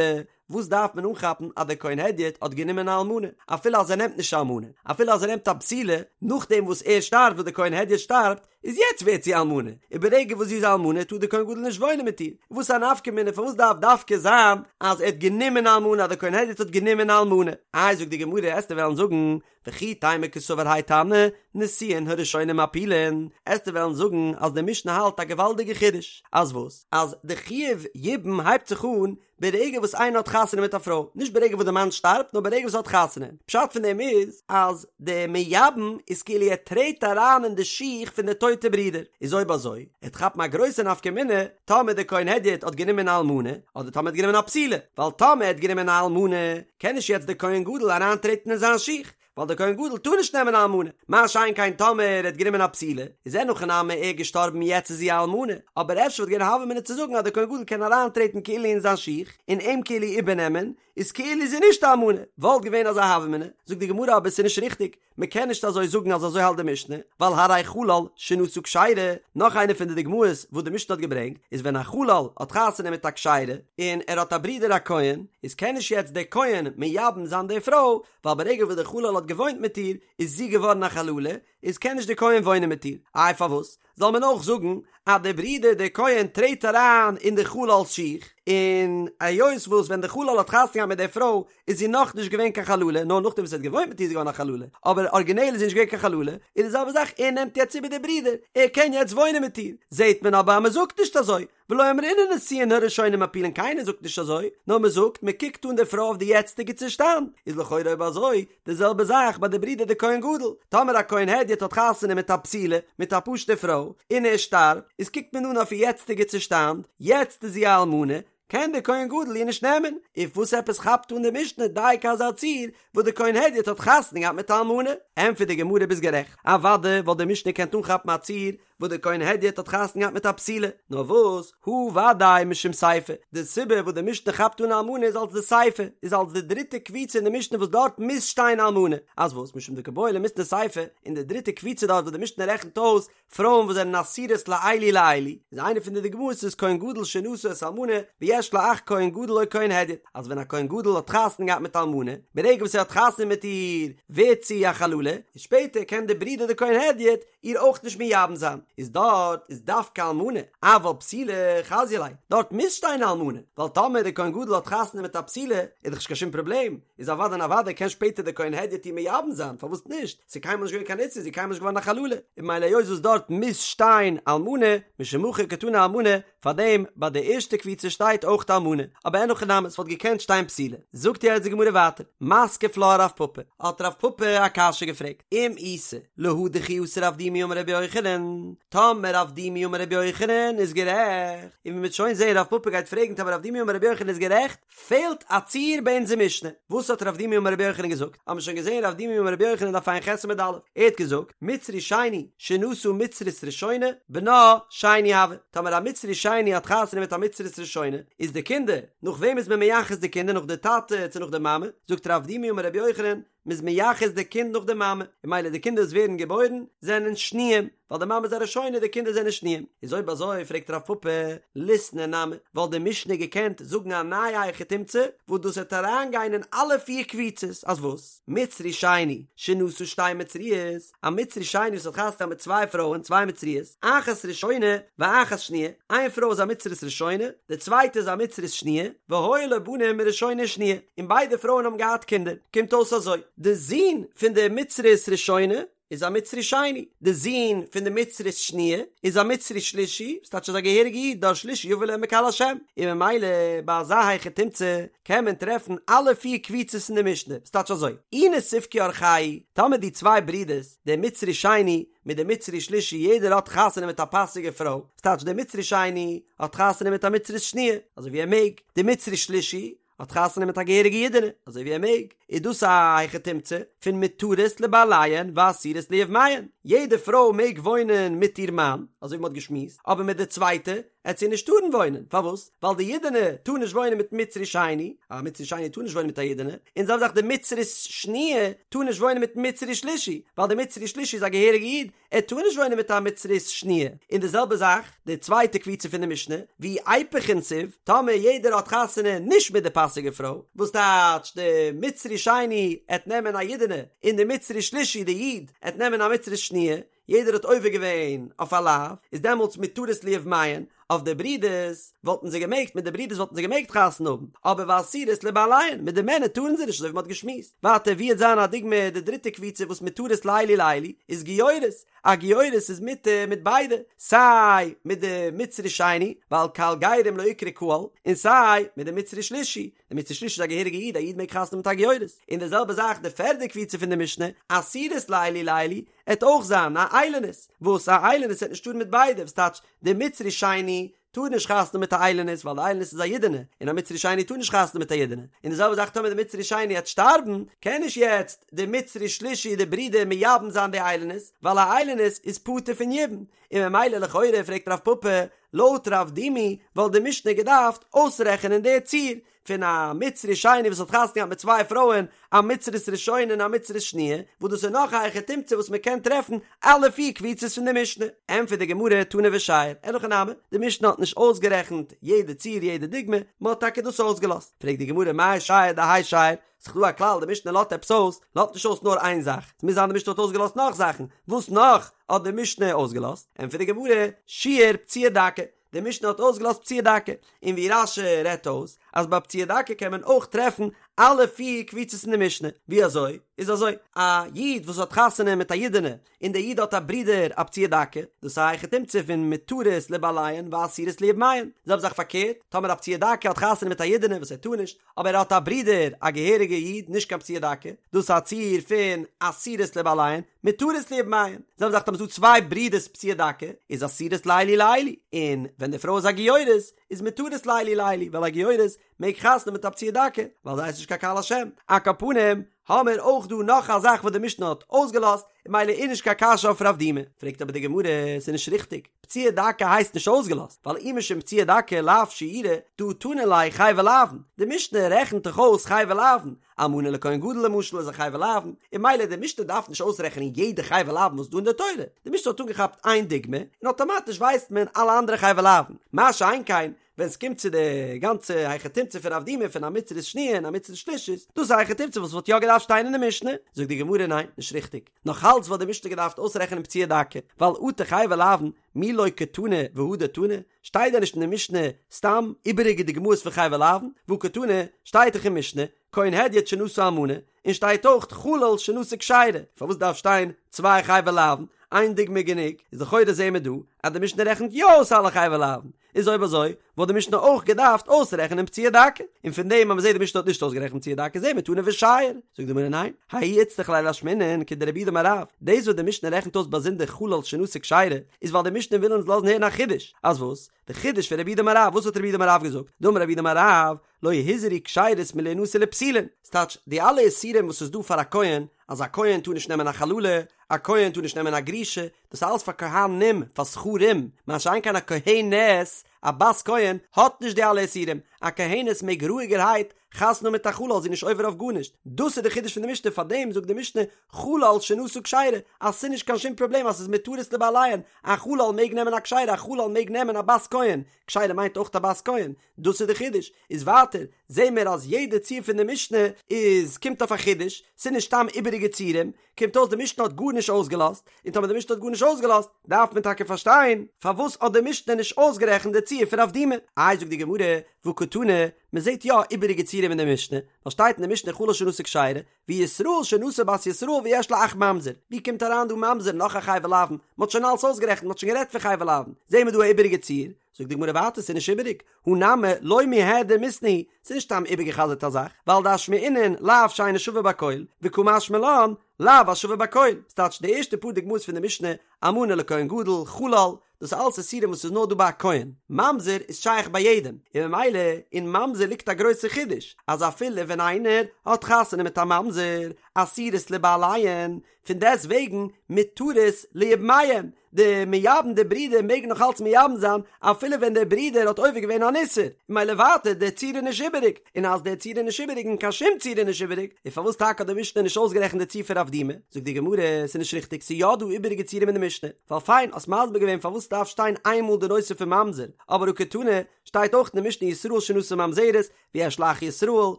וואס דארף מען אנכאפן אז דער כהן הדיוט האט גענומען א אלמנה, אפילו אז ער נעמט נישט א אלמנה, אפילו אז ער נעמט א בתולה, נאכדעם וואס ער שטארבט וואס דער כהן הדיוט שטארבט, איז יעצט ווערט זי אלמנה, און ברגע וואס זי איז אלמנה טאר דער כהן גדול נישט וואוינען מיט איר, וואס א נפקא מינה פארוואס דארף דווקא זיין אז ער האט גענומען א אלמנה אז דער כהן הדיוט האט גענומען א אלמנה? איי זאגט די גמרא עסטו וועלן זאגן וכי תימא קסבר האי תנא נישואין הראשונים מפילין, עסטו וועלן זאגן אז די משנה האלט א געוואלדיגע חידוש, אז וואס? אז די חיוב יבום הייבט זיך אן ברגע וואס איינער האט חתונה מיט א פרוי, נישט ברגע וואס די מאן שטארבט, נאר ברגע וואס ער האט חתונה. פשט פון דעם איז אז די מייבם איז כאילו ער טרעט אריין אין די שיך פון די טויטע ברודער. איז אויב אזוי, עט כאפן א גרויסע נפקא מינה טאמער די כהן הדיוט האט גענומען א אלמנה, אדער טאמער ער האט גענומען א בתולה, ווייל טאמער ער האט גענומען א אלמנה, קען נישט יעצט די כהן גדול אריינטרעטן אין זיין שיך, ווייל דער כהן גדול טאר נישט נעמען א אלמנה, מה שאין כן טאמער ער האט גענומען א בתולה, איז אין הכי נמי ער געשטארבן יעצט איז זי א אלמנה, אבער אפשר וואלט געווען א הוה אמינא צו זאגן אז דער כהן גדול קען אריינטרעטן כאילו אין זיין שיך, און אים כאילו איבערנעמען, איז כאילו זי נישט א אלמנה, וואלט געווען אזא הוה אמינא, זאגט די גמרא אבער ס'איז נישט ריכטיג, מען קען נישט אזוי זאגן אז אזוי האלט די משנה, ווייל הרי חלל שנשא כשרה, נאך איינע פון די דוגמאות וואס די משנה האט געברענגט, איז ווען א חלל האט חתונה מיט א כשרה, און ער האט א ברודער א כהן, איז קען נישט יעצט דער כהן מייבם זיין די פרוי, ווייל ברגע וואס דער חלל האט געוואוינט מיט איר איז זי געווארן א חללה, איז קען נישט דער כהן וואוינען מיט איר, איי פארוואס זאל מען אויך זאגן אז דער ברודער דער כהן טרעט אריין אין די חלל'ס שיך, און היות וואס ווען דער חלל האט חתונה געהאט מיט דער פרוי איז זי נאך נישט געווען קיין חללה, נאר נאכדעם וואס ער האט געוואוינט מיט איר איז זי געווארן א חללה, אבער ארגינעל איז זי נישט געווען קיין חללה, איז די זעלבע זאך ער נעמט יעצט איבער דער ברודער, ער קען יעצט וואוינען מיט איר, זעט מען אבער אז מען זאגט נישט אזוי, ולא אמרינן נישואין הראשונים מפילין קיינער זאגט נישט אזוי, נאר מען זאגט מען קוקט אן די פרוי אויף די יעצטיגע צושטאנד, איז לכאורה אויב אזוי די זעלבע זאך ביי די ברודער די כהן גדול, טאמער א כהן הדיוט האט חתונה מיט א בתולה, מיט א פשוטע פרוי, און ער שטארבט, איז קוקט מען אן אויף איר יעצטיגע צושטאנד, יעצט איז זי א אלמנה, קען די כהן גדול איר נישט נעמען, און וואס עפעס כאפט אן די משנה דייקא אזא ציור וואס די כהן הדיוט האט חתונה געהאט מיט א אלמנה? ענטפערט די גמרא ביסט גערעכט, אוודאי וואלט די משנה געקענט אנכאפן א ציור וואס דער כהן הדיוט האט חתונה געהאט מיט א בתולה, נאר וואס, הא ודאי משום סיפא, די סיבה וואס די משנה כאפט אן אלמנה איז אלס די סיפא, איז אלס די דריטע קבוצה אין די משנה וואס דארט מוז שטיין אלמנה, אז וואס, משום דקא בעי למיתני סיפא, אין די דריטע קבוצה דארט וואס די משנה רעכנט אויס פרויען וואס זענען אסורות לאלו ולאלו, איז איינע פון די דוגמאות איז כהן גדול שנשא את האלמנה ויש. יש לה אח כהן גדול או כהן הדיוט, אז ווען א כהן גדול האט חתונה געהאט מיט אלמנה, ברגע וואס ער האט חתונה מיט איר ווערט זי א חללה, און שפעטער קען די ברודער די כהן הדיוט איר אויך נישט מייבם זיין, איז דארט איז דווקא אלמנה, אבל בתולה חזיא ליה, דארט מוז שטיין אלמנה, ווייל טאמער די כהן גדול האט חתונה מיט א בתולה איז דאך נישט קיין שום פראבלעם, איז אוודאי און אוודאי קען שפעטער די כהן הדיוט איר מייבם זיין, פארוואס נישט? ס'איז קיינמאל נישט געווען קיין איסור, זי איז קיינמאל נישט געווארן א חללה, און ממילא היות וואס דארט מוז שטיין אלמנה, משום הכי קתני אלמנה, פארדעם ביי די ערשטע קבוצה שטייט אויך אלמנה, אבער אין הכי נמי ס'וואלט געקענט שטיין בתולה. זאגט יעצט די גמרא ווייטער, מתקיף לה רב פפא, האט רב פפא א קשיא געפרעגט, אם איתא להא דכי אתא רב דימי אמר רבי יוחנן, טאמער רב דימי אמר רבי יוחנן איז גערעכט, און ווי מ'וועט שוין זעהן רב פפא גייט פרעגן טאמער רב דימי אמר רבי יוחנן איז גערעכט, פעלט א ציור ביי אונזער משנה. וואס האט רב דימי אמר רבי יוחנן געזאגט? האבן מיר שוין געזען רב דימי אמר רבי יוחנן דף ע"ח עמוד א', ער האט געזאגט, מצרי שני שנשא מצרית ראשונה, בנה שני הוי, טאמער א מצרי שני האט חתונה מיט א מצרית ראשונה, איז די קינדער, נאך וועם איז מען מייחס די קינדער נאך די טאטע צו נאך די מאמע? זאגט רב דימי אמר רבי יוחנן, מ'איז מייחס די קינד נאך די מאמע, און ממילא די קינדער וואס ווערן געבוירן זענען שניים, ווייל די מאמע איז א ראשונה די קינדער זענען שניים. איז אויב אזוי פרעגט רב פפא, ליתני נמי, וואלט די משנה געקענט זאגן א נייע היכי תמצא, וואס דאס וועט אריינגיין אין אלע פיר קבוצות, אז וואס? מצרי שני, שנשא שתי מצריות, א מצרי שני וואס האט חתונה געהאט מיט צוויי פרויען, צוויי מצריות, אחת ראשונה ואחת שניה, איין פרוי איז א מצרית ראשונה, די צווייטע איז א מצרית שניה, והיו לו בנים מראשונה ושניה, און ביידע פרויען האבן געהאט קינדער, קומט אויס אזוי, די זון פון די מצרית ראשונה איז א מצרי שני, די זון פון די מצרית שניה איז א מצרי שלישי, וואס טייטש איז א געהעריגע איד, דור שלישי יבא לעמק קהל השם, און ממילא ביי אזא היכי תמצא קען מען טרעפן אלע פיר קבוצות אין די משנה, וואס טייטש אזוי, אי נסיפקו אורחייהו, טאמער די צוויי ברידערס, דער מצרי שני מיט דער מצרי שלישי יעדער האט חתונה מיט א פאסיגע פרוי, וואס טייטש דער מצרי שני האט חתונה מיט א מצרית שניה, אזוי ווי ער מעג, דער מצרי שלישי האט חתונה מיט א געהעריגע אידענע, אזוי ווי ער מעג, איז דאס א היכי תמצא פון מותרות לבעליהן ואסורות ליבמיהן, יעדע פרוי מעג וואוינען מיט איר מאן, אזוי ווי מען האט געשמועסט, אבער מיט די צווייטע עט זי נישט טארן וואוינען, פארוואס? ווייל די אידענע טאר נישט וואוינען מיט מצרי שני, א מצרי שני טאר נישט וואוינען מיט א אידענע, און זעלבע זאך די מצרית שניה טאר נישט וואוינען מיט מצרי שלישי, ווייל די מצרי שלישי איז א געהעריגע איד, ער טאר נישט וואוינען מיט א מצרית שניה, און די זעלבע זאך די צווייטע קבוצה פון די משנה, ואי איפוך נסיב, טאמער יעדער האט חתונה נישט מיט די פאסיגע פרוי, וואס טייטש די מצרי שני עט נעמען א אידענע, און די מצרי שלישי די איד עט נעמען א מצרית שניה, יעדער האט עובר געווען אויף א לאו, איז דעמאלטס מותרות ליבמיהן, אויף די ברידערס וואלטן זיי געמעגט, מיט די ברידערס וואלטן זיי געמעגט חתונה האבן, אבער ואסורות לבעליהן, מיט די מענער טארן זיי נישט אזוי ווי מ'האט געשמועסט. ווייטער ווי עט זיין א דוגמא די דריטע קבוצה וואס מותרות לאלו ולאלו איז גיורת, א גיורת איז מותר מיט ביידע, סיי מיט די מצרי שני, ווייל קהל גרים לא איקרי קהל, און סיי מיט די מצרי שלישי, די מצרי שלישי איז א געהעריגע איד, א איד מעג חתונה האבן מיט א גיורת. און די זעלבע זאך די פערדע קבוצה פון די משנה, אסורות לאלו ולאלו, עט אויך זיין א איילונית, וואס א איילונית עט נישט טארן מיט ביידע, וואס טייטש די מצרי שני טאר נישט חתונה מיט א איילונית ווייל די איילונית איז א אידענע, און א מצרי שני טאר נישט חתונה מיט א אידענע, און די זעלבע זאך טאמער די מצרי שני עט שטארבן, קען נישט יעצט די מצרי שלישי די ברודער מייבם זיין די איילונית, ווייל א איילונית איז פטור פון יבום, און ממילא לכאורה פרעגט רב פפא, לויט רב דימי וואלט די משנה געדארפט אויסרעכענען די ציור, פון א מצרי שני וואס האט חתונה געהאט מיט צוויי פרויען, א מצרית ראשונה און א מצרית שניה, וואס דאס איז נאך א היכי תמצא וואס מען קען טרעפן אלע פיר קבוצות פון די משנה. ענטפערט די גמרא תנא ושייר, אין הכי נמי, די משנה האט נישט אויסגערעכנט יעדע ציור יעדע דוגמא, מען האט טאקע דאס אויסגעלאזט. פרעגט די גמרא מאי שייר דהאי שייר, ס'איז דא א כלל די משנה לאזט עפעס אויס, לאזט נישט אויס נאר איין זאך, ס'מוז זיין די משנה האט אויסגעלאזט נאך זאכן, וואס נאך האט די משנה אויסגעלאזט? ענטפערט די גמרא, שייר פצוע דכא, די משנה האט אויסגעלאזט פצוע דכא, און ווי רש"י רעדט אויס אז ביי פצוע דכא קען מען אויך טרעפן אלע פיר קבוצות אין די משנה, ווי אזוי? איז אזוי, א איד וואס האט חתונה מיט א אידענע, און דער איד האט א ברודער א פצוע דכא, דאס איז א היכי תמצא פון מותרות לבעליהן ואסורות ליבמיהן, זעלבע זאך פארקערט, טאמער א פצוע דכא האט חתונה מיט א אידענע וואס ער טאר נישט, אבער ער האט א ברודער א געהעריגע איד נישט קיין פצוע דכא, דאס איז א ציור פון אסורות לבעליהן, מותרות ליבמיהן, זעלבע זאך טאמער ס'דא צוויי ברידערס פצוע דכא, איז אסורות לאלו ולאלו, און ווען די פרוי איז א גיורת, איז מותרות לאלו ולאלו, ווייל א גיורת מעג חתונה מיט א פצוע דכא, ווייל זי הייסט נישט קיין קהל השם, על כל פנים, האמיר אויך דא נאך א זאך וואס די משנה האט אויסגעלאזט, און ממילא איז נישט קיין קשיא אויף רב דימי, פרעגט אבער די גמרא, ס'איז נישט ריכטיג, פצוע דכא הייסט נישט אויסגעלאזט, ווייל אי משום פצוע דכא לאו שיורא, דהא תנא ליה חייבי לאוין, די משנה רעכנט דאך אויס חייבי לאוין, אלמנה לכהן גדול למשל איז א חייבי לאוין, און ממילא די משנה דארף נישט אויסרעכענען יעדע חייבי לאוין וואס איז דא אין די תורה, די משנה האט אנגעכאפט איין דוגמא, און אטאמאטיש ווייסט מען אלע אנדערע חייבי לאוין, מה שאין כן. ווען ס'קומט צו די גאנצע היכי תמצא פון רב דימי פון א מצרית שניה און א מצרית שלישית, דאס איז א היכי תמצא וואס וואלט יא געדארפט שטיין אין די משנה, זאגט די גמרא ניין, נישט ריכטיג, נאך אלץ וואלט די משנה געדארפט אויסרעכענען פצוע דכא, ווייל אטו חייבי לאוין מי לא קתני והדר תני, שטייט דען נישט אין די משנה סתם איבעריגע דוגמאות פון חייבי לאוין, והא קתני, שטייט דאך אין משנה, כהן הדיוט שנשא אלמנה, און שטייט אויך חלל שנשא כשרה, פארוואס דארף שטיין צוויי חייבי לאוין, איין דוגמא איז גענוג, איז לכאורה זעהן מיר דא אז די משנה רעכנט יא אויס אלע חייבי לאוין, איז אויב אזוי וואלט די משנה אויך געדארפט אויסרעכענען פצוע דכא, און פון דעם אז מ'זעהט די משנה האט נישט אויסגערעכנט פצוע דכא זעהן מיר תנא ושייר, זאגט די גמרא ניין, ההוא איצטריך ליה לאשמועינן כדרב יהודה אמר רב, דאס וואס די משנה רעכנט אויס באזונדער חלל שנשא כשרה, איז ווייל די משנה וויל אונז לאזן הערן א חידוש, אז וואס? די חידוש פון רב יהודה אמר רב, וואס האט רב יהודה אמר רב געזאגט? דאמר רב יהודה אמר רב, לא הוזהרו כשרות מלהנשא לפסולין, ס'טייטש, די אלע איסורים וואס איז דא פאר א כהן, אז א כהן טאר נישט נעמען א חללה, א כהן טאר נישט נעמען א גרושה, דאס איז אלעס פאר כהנים, פאר זכרים, מה שאין כן א כהנת, א בת כהן, האט נישט די אלע איסורים, א כהנת מעג רואיגערהייט חתונה האבן מיט א חלל, זי איז נישט עובר אויף גארנישט, דאס איז די חידוש פון די משנה, פארדעם זאגט די משנה חלל שנשא כשרה, אז ס'איז נישט קיין שום פראבלעם אז ס'איז מותרות לבעליהן, א חלל מעג נעמען א כשרה, א חלל מעג נעמען א בת כהן, כשרה מיינט אויך א בת כהן, דאס איז די חידוש, איז ווייטער זעהן מיר אז יעדע ציור פון די משנה איז קומט אויף א חידוש, ס'איז נישט סתם איבעריגע ציורים, קומט אויס די משנה האט גארנישט אויסגעלאזט, און טאמער די משנה האט גארנישט אויסגעלאזט, דארף מען טאקע פארשטיין פארוואס האט די משנה נישט אויסגערעכנט די ציור פון רב דימי. איי זאגט די גמרא, והא קתני, מען זעהט יא איבעריגע ציורים אין די משנה, ווייל שטייט אין די משנה חלל שנשא כשרה, וישראל שנשא בת ישראל ויש לו אח ממזר, ווי קומט אריין דא ממזר נאך א חייבי לאוין, מען האט שוין אלעס אויסגערעכנט, מען האט שוין גערעדט פון חייבי לאוין, זעהן מיר דא א איבעריגע ציור, זאגט די גמרא ווייטער ס'איז נישט איבעריג, הא נמי לא מיהדר מיתנא הוא, ס'איז נישט סתם איבערגע'חזר'ט א זאך, ווייל דאשמעינן לאו שאינו שווה בכל, וקא משמע לן, לאו השווה בכל, ס'טייטש די ערשטע פאר דוגמאות פון די משנה, אלמנה לכהן גדול, חלל, דאס איז אלעס איסורים וואס איז נאר דא ביי א כהן, ממזר איז שייך ביי יעדעם, און ממילא אין ממזר ליגט א גרויסע חידוש, אז אפילו ווען איינער האט חתונה מיט א ממזר, אסורות לבעליהן, פון דעסט וועגן מותרות ליבמיהן, די מייבם די ברידער מעגן נאך אלץ מייבם זיין אפילו ווען דער ברודער האט עובר געווען אן איסור, ממילא ווייטער דער ציור איז נישט איבעריג, און אז דער ציור איז נישט איבעריג און קיין שום ציור איז נישט איבעריג, איז פארוואס טאקע האט די משנה נישט אויסגערעכנט די ציור פון רב דימי? זאגט די גמרא, ס'איז נישט ריכטיג, ס'איז יא דא איבעריגע ציורים אין די משנה, ווייל פיין האסט מסביר געווען פארוואס ס'דארף שטיין איינמאל די נושא פון ממזר, אבער הא קתני, שטייט אויך אין די משנה ישראל שנשא ממזרת, ויש לו אח ישראל, און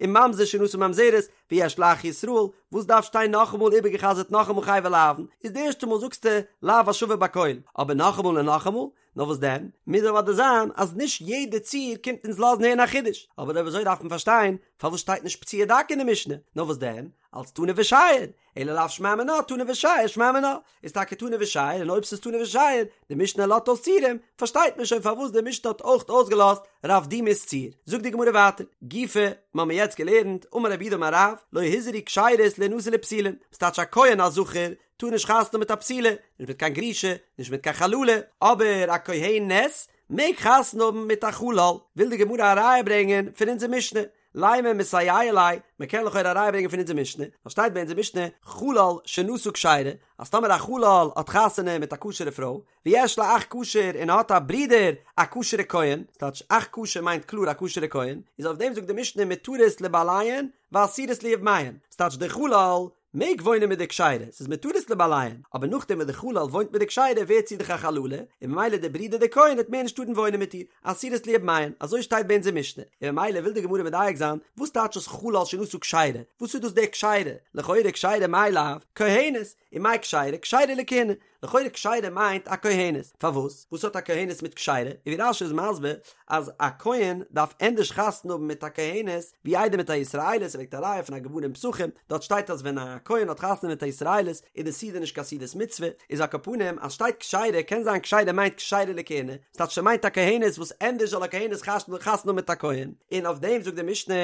ממזר שנשא ממזרת, ויש לו אח ישראל, וואס דארף שטיין נאכאמאל איבערגעחזרט נאכאמאל חייבי לאוין, איז די ערשטע מאל זאגסטו לאו השווה בכל, אבער נאכאמאל און נאכאמאל, נאר וואס דען, מוז אוודאי זיין אז נישט יעדע ציור קומט אונז לאזן הערן א חידוש, אבער אויב אזוי דארף מען פארשטיין פארוואס שטייט נישט פצוע דכא אין די משנה, נאר וואס דען, אלץ תנא ושייר, אלא לאו שמע מינה תנא ושייר שמע מינה, איז טאקע תנא ושייר און אויב ס'איז תנא ושייר, די משנה לאזט אויס ציורים, פארשטייט מען שוין פארוואס די משנה האט אויך אויסגעלאזט רב דימי'ס ציור. זאגט די גמרא ווייטער, גופא, מ'האמיר יעצט געלערנט, אמר רב יהודה אמר רב, לא הוזהרו כשרות להנשא לפסולין, וואס טייטש א כהן א זכר טאר נישט חתונה מיט א פסולה, נישט מיט קיין גרושה, נישט מיט קיין חללה, אבער א כהנת מעג חתונה האבן מיט א חלל, וויל די גמרא א ראיה ברענגען פון אונזער משנה, לימא מסייע ליה, מען קען לכאורה א ראיה ברענגען פון אונזער משנה, ווייל שטייט ביי אונזער משנה, חלל שנשא כשרה, אז טאמער א חלל האט חתונה מיט א כשר'ע פרוי, ויש לו אח כשר און ער האט א ברודער א כשר'ע כהן, ס'טייטש אח כשר מיינט קלאר א כשר'ע כהן, איז אויף דעם זאגט די משנה מותרות לבעליהן ואסורות ליבמיהן, ס'טייטש דער חלל מעג וואוינען מיט די כשרה, ס'איז מותרות לבעליהן, אבער נאכדעם וואס די חלל וואוינט מיט די כשרה ווערט זי דאך א חללה, און ממילא דער ברודער דער כהן וועט מער נישט טארן וואוינען מיט איר, אסורות ליבמיהן, אזוי שטייט ביי אונזער משנה, און ממילא וויל די גמרא מדייק זיין, וואס טייטש דאס חלל שנשא כשרה, וואס איז דאס דער כשרה, לכאורה כשרה מאי לאו, כהנת, ומאי כשרה, כשרה לכהונה, לכאורה כשרה מיינט א כהנת, פארוואס? וואס האט א כהנת מיט כשרה? און ווי רש"י איז מסביר אז א כהן דארף ענדערש חתונה האבן מיט א כהנת ווי איידער מיט א ישראלית, ער ברענגט א ראיה פון א גמרא אין פסחים, דארט שטייט אז ווען א כהן האט חתונה מיט א ישראלית איז די סעודה נישט קיין סעודת מצוה, איז על כל פנים אז שטייט כשרה קען זיין כשרה מיינט כשרה לכהונה, ס'טייטש ס'מיינט א כהנת וואס ענדערש זאל א כהנת חתונה האבן מיט א כהן, און אויף דעם זאגט די משנה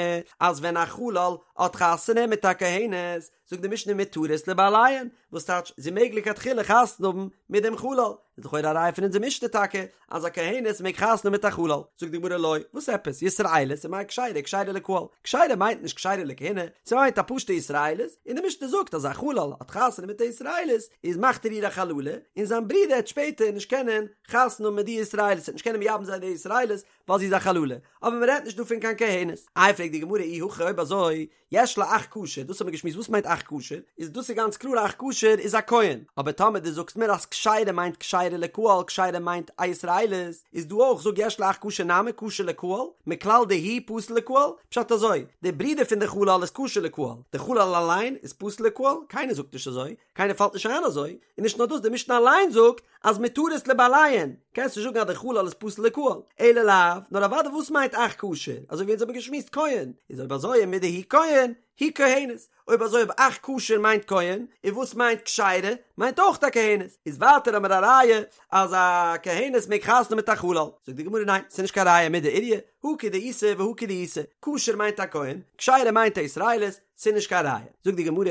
אז ווען א חלל האט חתונה מיט א כהנת זאגט די משנה מותרות לבעליהן, וואס טייטש זי מעג לכתחילה חתונה האבן מיט דעם חלל, איז לכאורה א ראיה פון אונזער משנה טאקע אז א כהנת מעג חתונה האבן מיט א חלל, זאגט די גמרא לא, וואס עפעס, ישראלית ומאי כשרה כשרה לקהל, כשרה מיינט נישט כשרה לכהונה, ס'מיינט א פשוטע ישראלית, און די משנה זאגט אז א חלל האט חתונה מיט א ישראלית איז מאכט ער איר א חללה, און זיין ברודער העט שפעטער נישט קענען חתונה האבן מיט די ישראלית, ער העט נישט קענען מייבם זיין די ישראלית ווייל זי איז א חללה, אבער מ'רעדט נישט דא פון קיין כהנת. איי פרעגט די גמרא אי הכי אויב אזוי יש לו אח כשר, דאס האבן מיר געשמועסט וואס מיינט אח כשר, איז דאס איז גאנץ קלאר אח כשר איז א כהן, אבער טאמער דו זאגסט מיר אז כשרה מיינט כשרה. כשרה לקהל כשרה מיינט א ישראלית, איז דא אויך זאג יש לאח כשר נמי כשר לקהל, מכלל דהוא פסול לקהל, פשט אזוי, די ברודער פון די חלל איז כשר לקהל, די חלל אליין איז פסול לקהל, קיינער זאגט נישט אזוי, קיינער פאלט נישט איין אזוי, און נישט נאר דאס די משנה אליין זאגט אז מותרות לבעליהן, קענסט נישט זאגן אז די חלל איז פסול לקהל, אלא לאו, נאר אוודאי וואס מיינט אח כשר, אזוי ווי אונז האבן געשמועסט כהן, איז אויב אזוי ומדהוא כהן, היא כהנת, אויב אזוי אויב אח כשר מיינט כהן, און וואס מיינט כשרה, מיינט אויך א כהנת, איז ווייטער האמיר א ראיה אז א כהנת מעג חתונה מיט א חלל, זאגט די גמרא ניין, ס'איז נישט קיין ראיה מידי איריא, הא כדאיתא והא כדאיתא, כשר מיינט א כהן, כשרה מיינט א ישראלית, ס'איז נישט קיין ראיה, זאגט די גמרא,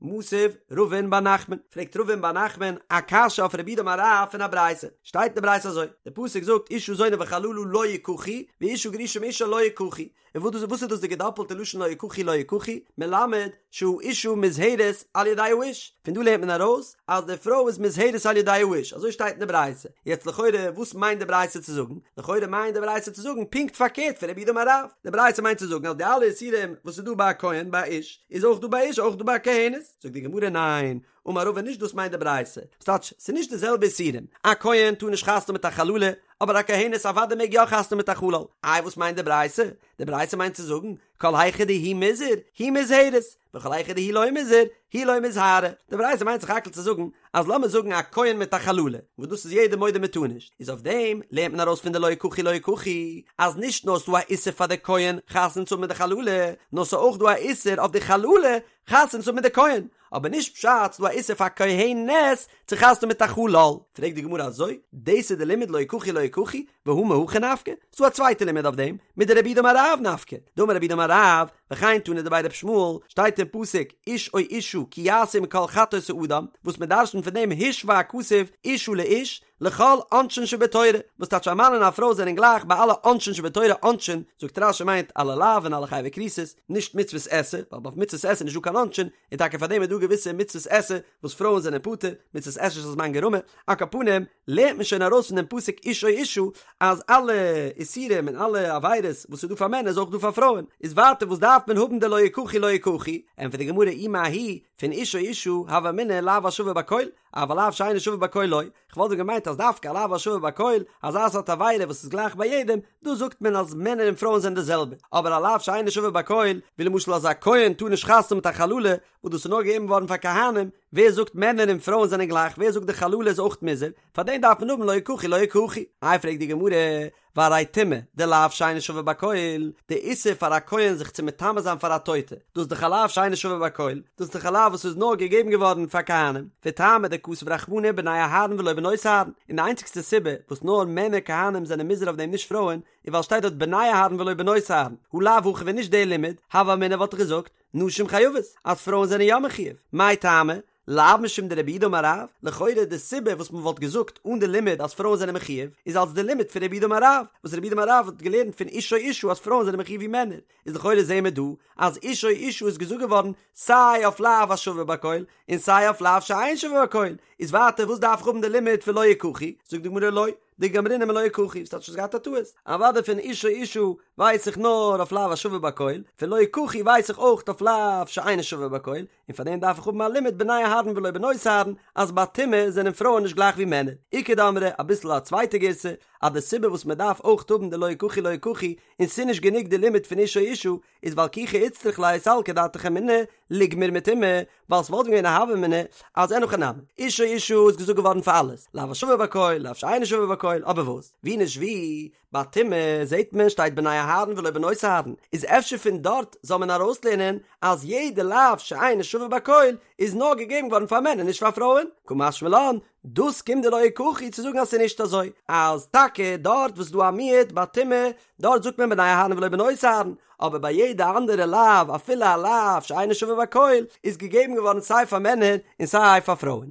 מתיב רבין בר נחמן, פרעגט רבין בר נחמן א קשיא אויף רב יהודה אמר רב פון א ברייתא, שטייט אין די ברייתא אזוי, די פסוק זאגט אשה זונה וחללה לא יקחו, ואשה גרושה מאישה לא יקחו, און וואס וואס איז דאס די געדאפלטע לשון לא יקחו לא יקחו, מלמד שהאשה מוזהרת על ידי האיש, פון דא לערנט מען ארויס אז די פרוי איז מוזהרת על ידי האיש, אזוי שטייט אין די ברייתא, יעצט לכאורה וואס מיינט די ברייתא צו זאגן? לכאורה מיינט די ברייתא צו זאגן פונקט פארקערט פון רב יהודה אמר רב, די ברייתא מיינט צו זאגן אז די אלע איסורים וואס איז דא ביי א כהן ביי א איש איז אויך דא ביי א אשה אויך דא ביי א כהנת, זאגט די גמרא ניין, אמר רבא נישט דאס מיינט די ברייתא, ס'טייטש ס'איז נישט די זעלבע איסורים, א כהן טאר נישט חתונה מיט א חללה, אבער א כהנת אוודאי מעג יא חתונה מיט א חלל, איי וואס מיינט די ברייתא? די ברייתא מיינט צו זאגן, כל היכא דהוא מוזהר, היא מוזהרת, וכל היכא דהוא לא מוזהר, היא לא מיזהרא, די ברייתא מיינט סך הכל צו זאגן, אז לאמיר זאגן א כהן מיט א חללה, וואס דאס איז יעדער מודה מ'טאר נישט, איז אויף דעם לערנט מען ארויס פון די לא יקחו לא יקחו, אז נישט נאר ס'דא א איסור פאר די כהן חתונה צו האבן מיט די חללה, נאר ס'איז אויך דא א איסור אויף די חללה חתונה צו האבן מיט די כהן, אבער נישט פשט ס'דא א איסור פאר כהנת צו חתונה מיט א חלל. פרעגט די גמרא אזוי, דאס איז די לימוד לא יקחו לא יקחו, והא מהכא נפקא? ס'דא א צווייטע לימוד אויף דעם, מדרב יהודה אמר רב נפקא, דאמר רב יהודה אמר רב, וכן תנא דבי ר' ישמעאל, שטייט אין פסוק, איש או אשה כי יעשו מכל חטאות האדם, וואס מ'דרש'נט פון דעם השווה הכתוב אשה לאיש, לכל עונשין שבתורה, וואס טייטש א מאן און א פרוי זענען גלייך ביי אלע עונשין שבתורה, עונשין, זאגט רש"י מיינט אלע לאווין אלע חייבי כריתות, נישט מצוות עשה, ווייל אויף מצוות עשה איז נישטא קיין עונשין, און טאקע פאר דעם איז דא געוויסע מצוות עשה וואס פרויען זענען פטור, מצוות עשה שהזמן גרמא, על כל פנים, לערנט מען שוין ארויס פון דעם פסוק איש או אשה, אז אלע איסורים און אלע עבירות וואס איז דא פאר מענער איז אויך דא פאר פרויען, איז ווייטער וואס דארף מען האבן די לא יקחו לא יקחו, ענטפערט די גמרא אי מההיא, פון איש או אשה, הוה אמינא לאו השווה בכל, אבל לאו שאינו שווה בכל לא, כ'וואלט ווען געמיינט אז דווקא א לאו השווה בכל, אזא סארט עבירה וואס איז גלייך ביי יעדעם, דא זאגט מען אז מענער און פרויען זענען די זעלבע, אבער א לאו שאינו שווה בכל, ווי למשל אז א כהן טאר נישט חתונה מיט א חללה, וואס דאס איז נאר געגעבן געווארן פאר כהנים, ווער זאגט מענער און פרויען זענען גלייך, ווער זאגט די חללה איז אויך מוזהר, פאר דעם דארף מען האבן לא יקחו לא יקחו. איי פרעגט די גמרא, והרי טומאה דלאו שאינו שווה בכל, די איסור פאר א כהן זיך צו מטמא זיין פאר א טויטע, דאס איז דאך א לאו שאינו שווה בכל, דאס איז דאך א לאו וואס איז נאר געגעבן געווארן פאר כהנים, וטעמא דכתב רחמנא בני אהרן ולא בנות אהרן, און די איינציגסטע סיבה וואס נאר מענער כהנים זענען מוזהר אויף דעם נישט פרויען, איז ווייל שטייט דארט בני אהרן ולא בנות אהרן, הא לאו הכי ווען נישט דער לימוד, הוה אמינא וואלט איך געזאגט, נשים חייבות, אז פרויען זענען יא מחויב, מאי טעמא? לאו משום דרב יהודה אמר רב, לכאורה די סיבה וואס מען וואלט געזאגט אן די לימוד אז פרויען זענען מחויב, איז אלס די לימוד פון רב יהודה אמר רב, וואס רב יהודה אמר רב האט געלערנט פון איש או אשה אז פרויען זענען מחויב ווי מענער, איז לכאורה זעהן מיר דא אז איש או אשה איז געזאגט געווארן סיי אויף לאו השווה בכל און סיי אויף לאו שאין שווה בכל, איז ווייטער וואס דארף איך האבן די לימוד פון לא יקחו, זאגט די גמרא לא, דגמרינן מלא יקחו, ס'טייטש האסט געהאט א טעות, אוודאי פון איש או אשה ווייס איך נאר אויף לאו השווה בכל, פון לא יקחו ווייס איך אויך אויף לאו שאינו שווה בכל, און פאר דעם דארף איך האבן א לימוד בני אהרן ולא בנות אהרן, אז ביי טומאה זענען פרויען נישט גלייך ווי מענער. איכא דאמרי, אביסל א צווייטע גירסא, אז די סיבה וואס מען דארף אויך האבן די לא יקחו לא יקחו, און ס'איז נישט גענוג די לימוד פון איש או אשה, איז ווייל כי איצטריך ליה סלקא דעתך אמינא, ליגמר מטומאה, ווייל ס'וואלט געווען א הוה אמינא אז אין הכי נמי, איש או אשה איז געזאגט געווארן פאר אלעס, לאו השווה בכל, לאו שאינו שווה בכל, אבער וואס? ווי נישט ווי, ביי טומאה זעט מען שטייט בני אהרן ולא בנות אהרן, איז אפשר פון דארט זאל מען ארויסלערנען אז יעדע לאו שאינו שווה בכל איז נאר געגעבן געווארן פאר מענער נישט פאר פרויען, קא משמע לן, דאס קומט די לא יקחו צו זאגן אז ס'איז נישט אזוי, אז טאקע דארט וואס איז דא א מיעוט ביי טומאה, דארט זאגט מען בני אהרן ולא בנות אהרן, אבער ביי יעדע אנדערע לאו אפילו א לאו שאינו שווה בכל איז געגעבן געווארן סיי פאר מענער און סיי פאר פרויען.